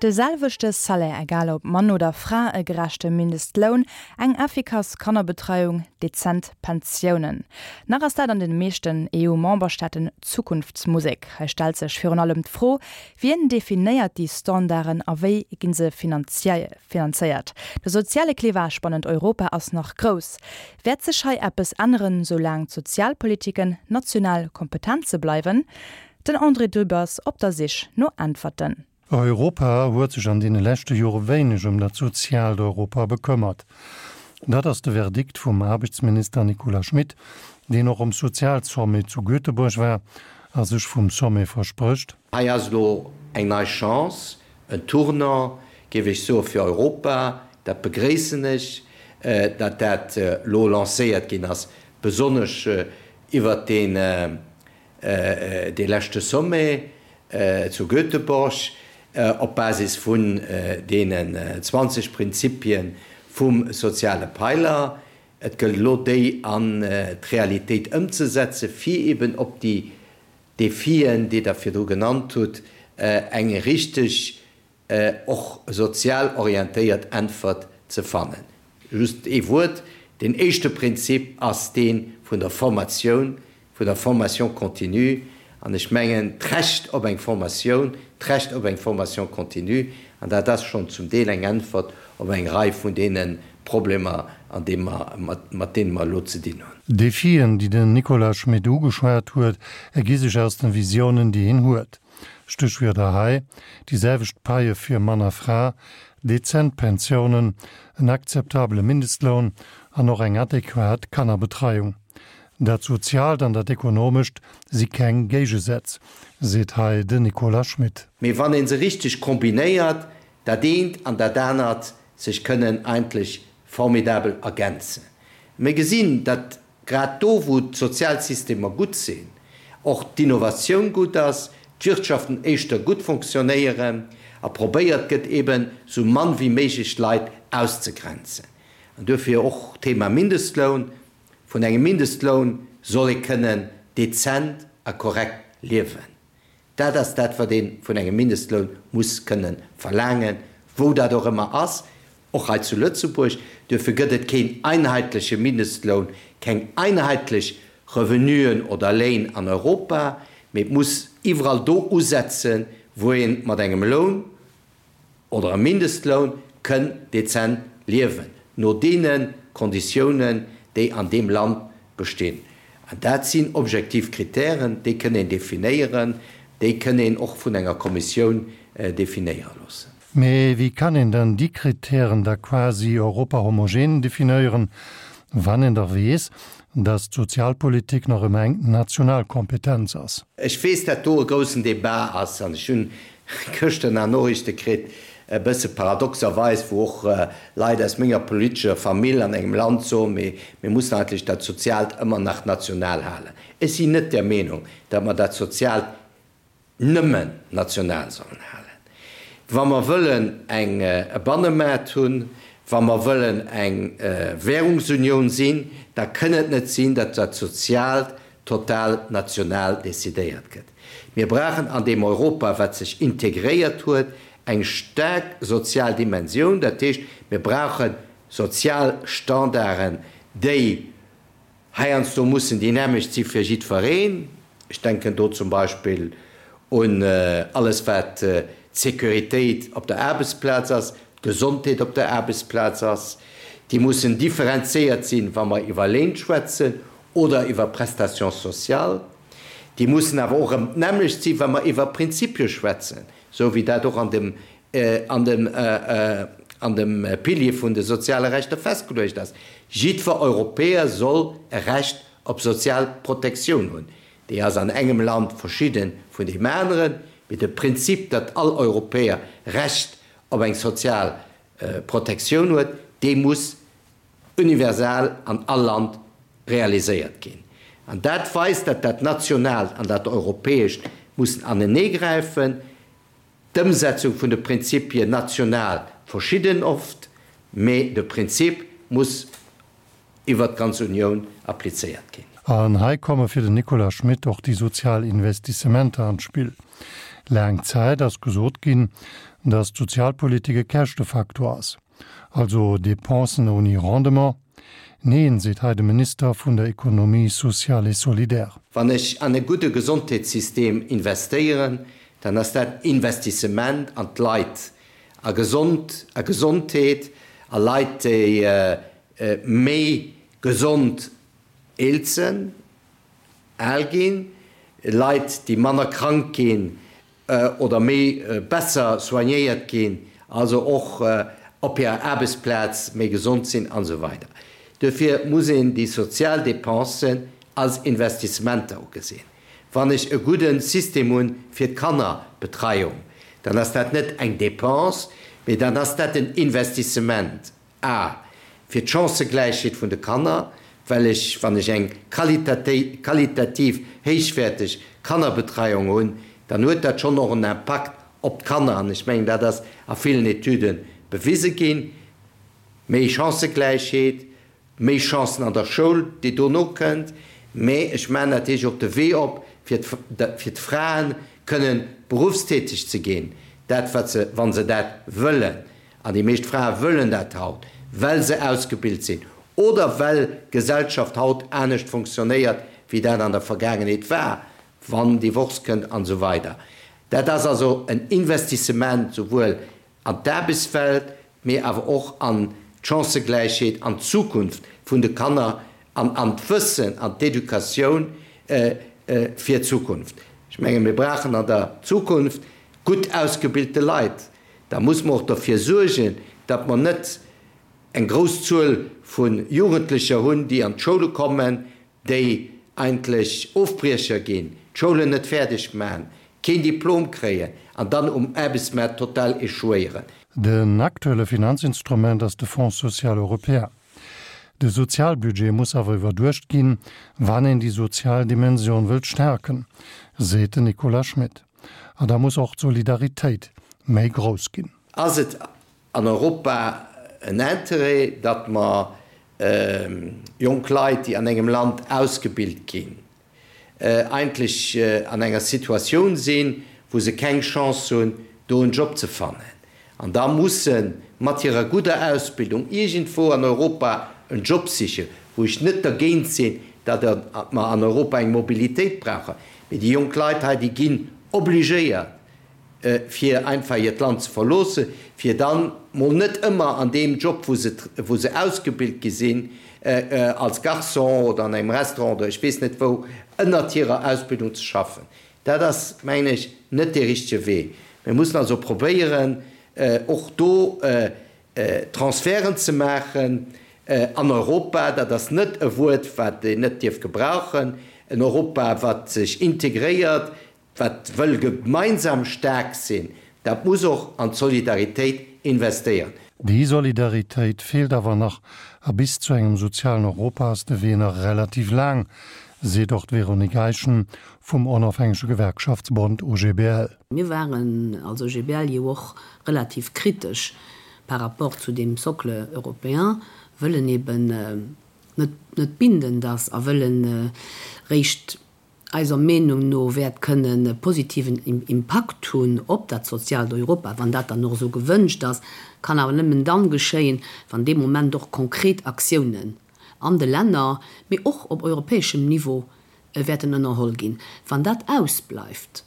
De selwechte Salaire, egal ob Mann oder Fra, e gerechte Mindestloun, eng effikass Kannerbetreiung, dezent Pensiounen. Nach ass dat an den meeschten EU-Memberstaaten Zukunftsmusek. Hei stellt sech virun allem d'Fro, Wien definéiert déi Standarden a wéi ginn se finanzéiert? De soziale Clivage bannent Europa ass nach grouss. Wäert sech hei eppes änneren, soulaang d'Sozialpolitiken national Kompetenze bleiwen? Den André Dübbers op der Sich no Äntwerten. Europa huet sech an deene leschte Jore wéineg ëm dat soziaalt Europa bekëmmert. Dat ass de Verdikt vum Aarbechtsminister Nicolas Schmit, deen och um Sozialsommet zu Göteborg war a sech vum Sommet versprécht, Hei ass elo eng nei Chance, en Tournant, géif ech soen, fir Europa. Dat begréissen ech, datt dat elo lancéiert ginn ass, besonnesch iwwert deen dee leschte Sommet zu Göteborg, op Basis vun deenen 20 Prinzipie vum soziale Peiler. Et gëllt elo, déi an d'Realitéit ëmzesetzen, fir eben op déi Defien, déi Der virdru genannt hutt, eng richteg, och sozial orientéiert Äntwert ze fannen. Just ee Wuert, Deen éischte Prinzip ass dee vun der Formatioun, vun der Formation continue. An ech mengen, d'Recht op eng Formatioun, d'Recht op eng Formation continue, an dat ass schonn zum Deel eng Äntwert op eng Rei vun deene Problemer, an deem mer, mat deene mer elo ze dinn hunn. D'Defien, déi den Nicolas Schmit ugeschwat huet, ergi sech aus den Visiounen, déi hien huet. Stéchwierder hei, déi selwecht Paie fir Mann a Fra, dezent Pensiounen, en akzeptabele Mindestloun an och eng adequat Kannerbetreiung. Dat Soziaalt an dat Ekonomescht si keng Géigesätz, seet hei den Nicolas Schmit. Mee wann ee se richteg kombinéiert, dat eent an dat anert sech kënnen eigentlech formidabel ergänzen. Mir gesinn, datt grad do, wou d'Sozialsystemer gutt sinn, och d'Innovatioun gutt ass, d'Wirtschaften éischter gutt fonctionnéieren a probéiert gëtt, eben esou mann wéi méiglech Leit auszegrenzen. An duerfir och d'Thema Mindestloun. Vun engem Mindestloun soll ee kënnen dezent a korrekt liewen. Dat ass dat, wat ee vun engem Mindestloun muss kënne verlaangen, wou dat och ëmmer ass, och hei zu Lëtzebuerg. Duerfir gëtt et keen einheitleche Mindestloun, keng einheitlech Revenuen oder Léin an Europa, mee et muss iwwerall do usetzen, wou ee mat engem Loun, oder e Mindestloun kënn dezent liewen, no deene Konditiounen, déi an deem Land bestinn. An dat sinn objektiv Kritären, déi kënn een definéieren, déi kënn een och vun enger Kommissioun definéiere loossen. Mee wéi kann een dann déi Kritären da quasi europahomogen definéieren, wann een dach weess, dass d'Sozialpolitik nach ëmmer eng national Kompetenz ass? Ech weess, dat do e groussen Débat ass, an ech hunn gëschter nach Noriichte kritt, e bësse paradoxerweis, wou och Leit aus menger politescher Famill an engem Land soen, mee mir mussen eigentlech dat Soziaalt ëmmer nach national halen. Ech sinn net der Meenung, datt mer dat Soziaalt nëmmen national sollen halen. Wa mer wëllen eng e Bannemaart hunn, wa mer wëllen eng Währungsunioun sinn, da kënn et net sinn, datt dat Soziaalt total national decidéiert gëtt. Mir brauchen an deem Europa, wat sech integréiert huet, eng staark sozial Dimensioun. Dat heescht, mir brauche sozial Standarden, déi heiansdo mussen déi nämmlecht si fir jiddwereen. Ech denken do zum Beispill un alles, wat d'Sécuritéit op der Aarbechtsplaz ass, d'Gesondheet op der Aarbechtsplaz ass. Déi mussen differenziéiert sinn, wa mer iwwer Léin schwätzen oder iwwer Prestations sociales. Déi mussen awer och erëm d'nämmlecht sinn, wa mer iwwer Prinzipie schwätzen, esou wéi dat och an dem, an dem, an dem Pilier vun de soziale Rechter festgeluecht ass. Jiddwer Europäer soll e Recht op sozial Protektioun hunn. Déi ass an engem Land verschidde vun deem aneren, mee de Prinzip, datt all Europäer Recht op eng sozial Protektioun huet, dee muss universal an all Land realiséiert ginn. An dat weist, datt dat Nationaalt an dat Europäescht mussen aneneegräifen. D'Ëmsetzung vun de Prinzipien national verschidden oft, mee de Prinzip muss iwwert d'ganz Unioun applizéiert ginn. An hei komme fir den Nicolas Schmit och déi sozial Investissementer an d'Spill. Laang Zäit ass gesot ginn, datt d'Sozialpolitik e Käschtefaktor ass, also Dépensen ouni Rendement. Neen, seet hei de Minister vun der Économie sociale et solidaire. Wann ech an e gudde Gesondheetssystem investéieren, dann ass dat Investissement an d'Leit, a gesond, a Gesondheet, a Leit, déi méi gesond eelzen, al ginn, Leit, déi manner krank ginn oder méi besser soignéiert ginn, also och op hirer Aarbechtsplaz méi gesond sinn an esou weider. Duerfir muss een déi sozial Dépensen als Investissementer ugesinn. Wann ech e gudde System hunn fir d'Kannerbetreiung, dann ass dat net eng Dépense, mee dann ass dat en Investissement. A, Fir d'Chancëgläichheet vun de Kanner, well ech, wann ech eng qualitativ héichwäerteg Kannerbetreiung hunn, dann huet dat schonn och en Impakt op d'Kanner, an ech mengen, dat ass a villen Etüde bewise ginn, méi Chancëgläichheet, méi Chancen an der Schoul, déi dono kënnt, mä ech maachen natierlech och de Wee op, fir fir d'Fraen kënnen beruffstäteg ze ginn, dat wat se, wa se dat wëllen, an déi meescht Frae wëllen dat haut, well se ausgebilt sinn oder well d'Gesellschaft haut anescht fonctionnéiert, wéi dat an der Vergaangenheet war, wann Divorce kënnt an esou weider. Dat ass also en Investissement souwuel an d'Aarbechtswelt, mee awer och an d'Chancëgläichheet, an d'Zukunft vun de Kanner an an d'Wëssen, an d'Educatioun fir d'Zukunft. Ech menge mir brauchen an der Zukunft gutt ausgebilte Leit. Da muss mer och derfir suergen, datt mer net eng grouss Zuel vu Jugendlecher hunn, déi an d'Schoule kommen, déi eigentlech Ofbriecher ginn, d'Schoulen net fäerdeg maachen, keen Diplom kréien an dann um Aarbechtsmaart total échouéieren. Den aktuelle Finanzinstrument ass de Fonds social européen. De Sozialbudget muss awer iwwerduecht ginn, wann een déi sozial Dimension wëllt stärken, seet den Nicolas Schmit. A da muss och d'Solidaritéit méi grouss ginn. Ass et an Europa en Interêt, datt mer jonk Leit, déi an engem Land ausgebilt ginn, eigentlech an enger Situatioun sinn, wou se keng Chance hunn, do en Job ze fannen, an da musse mat hirer gudder Ausbildung iergendwou an Europa en Job sichen, wou ech net dergéint sinn, datt mer an Europa eng Mobilitéit brauchen, mee déi jonk Leit hei, déi ginn obligéiert, fir einfach hiert Land ze verloossen, fir dann mol net ëmmer an deem Job, wou se, wou se ausgebilt gi sinn, als Garçon oder an engem Restaurant oder ech weess net wou, ënnert hirer Ausbildung ze schaffen. Dat ass, mengen ech, net dee richtege Wee. Mir mussen also probéieren, och do Transferten ze maachen an Europa. Dat ass net e Wuert, wat een net dierf gebrauchen. En Europa, wat sech integréiert, Wat wëll gemeinsam staark sinn, dat muss och an d'Solidaritéit investéieren. Déi Solidaritéit feelt awer nach a bis zu engem sozialen Europa ass de Wee nach relativ laang, seet och d'Véronique Eischen vum onofhängege Gewerkschaftsbond OGBL. Mir waren als OGBL jo och relativ kritesch par rapport zu deem Socle européen, wëll en eben net net bindend ass a wëll en réischt eiser Meenung no wäert kënnen e positiven Impakt hunn op dat soziaalt Europa, wann dat dann och esou gewënscht ass, kann awer nëmmen dann geschéien, wann dee Moment och konkret Aktiounen an de Länner, mee och op europäeschem Niveau wäerten ënnerholl ginn. Wann dat ausbleift,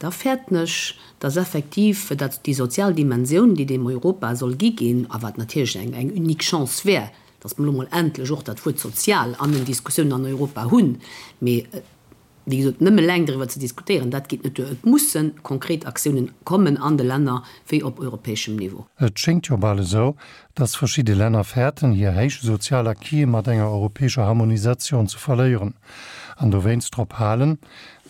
da fäerten ech, dass effektiv dat déi sozial Dimensioun, déi deem Europa soll gi ginn, a wat natierlech eng eng unique Chance wär, dass mer elo mol endlech och dat Wuert sozial an den Diskussiounen an Europa hunn, mee wéi gesot, nëmme eleng driwwer ze diskutéieren, dat geet net duer. Et musse konkret Aktiounen kommen an de Länner wéi op europäeschem Niveau. Et schéngt jo bal esou, dass verschidde Länner fäerten, hir héich sozial Acquise mat enger europäescher Harmonisatioun ze verléieren an dowéinst drop halen,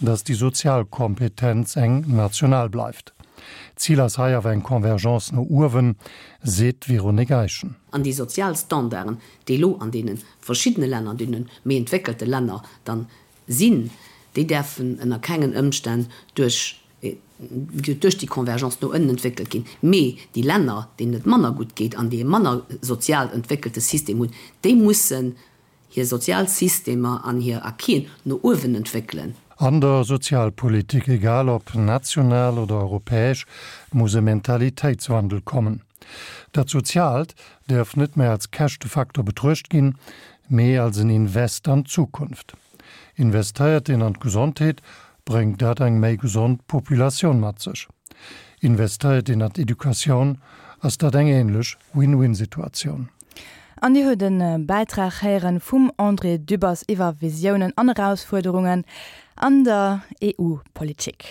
dass déi sozial Kompetenz eng national bleift. Zil ass hei awer eng Convergence no uewen, seet d'Véronique Eischen. An déi sozial Standarden, déi elo an deene verschiddene Länner, an deene méi entwéckelte Länner dann sinn, déi däerfen ënner kengen Ëmstänn duerch duerch déi Convergence no ënnen entwéckelt ginn. Mee déi Länner, deenen et manner gutt geet an déi e manner sozial entwéckelte System hunn, déi mussen hir sozial Systemer an hir Acquisen no uewen entwéckelen. An der Sozialpolitik, egal ob national oder europäesch, muss e Mentalitéitswandel kommen. Dat Soziaalt däerf net méi als Käschtefaktor betruecht ginn, mee als en Invest an d'Zukunft. Investéiert een an d'Gesondheet, bréngt dat eng méi gesond Populatioun mat sech. Investéiert een an d'Educatioun, ass dat eng änlech Win-win-Situatioun. An Dir hutt e Bäitrag héieren vum André Dübbers iwwer Visiounen an Erausfuerderungen an der EU-Politik.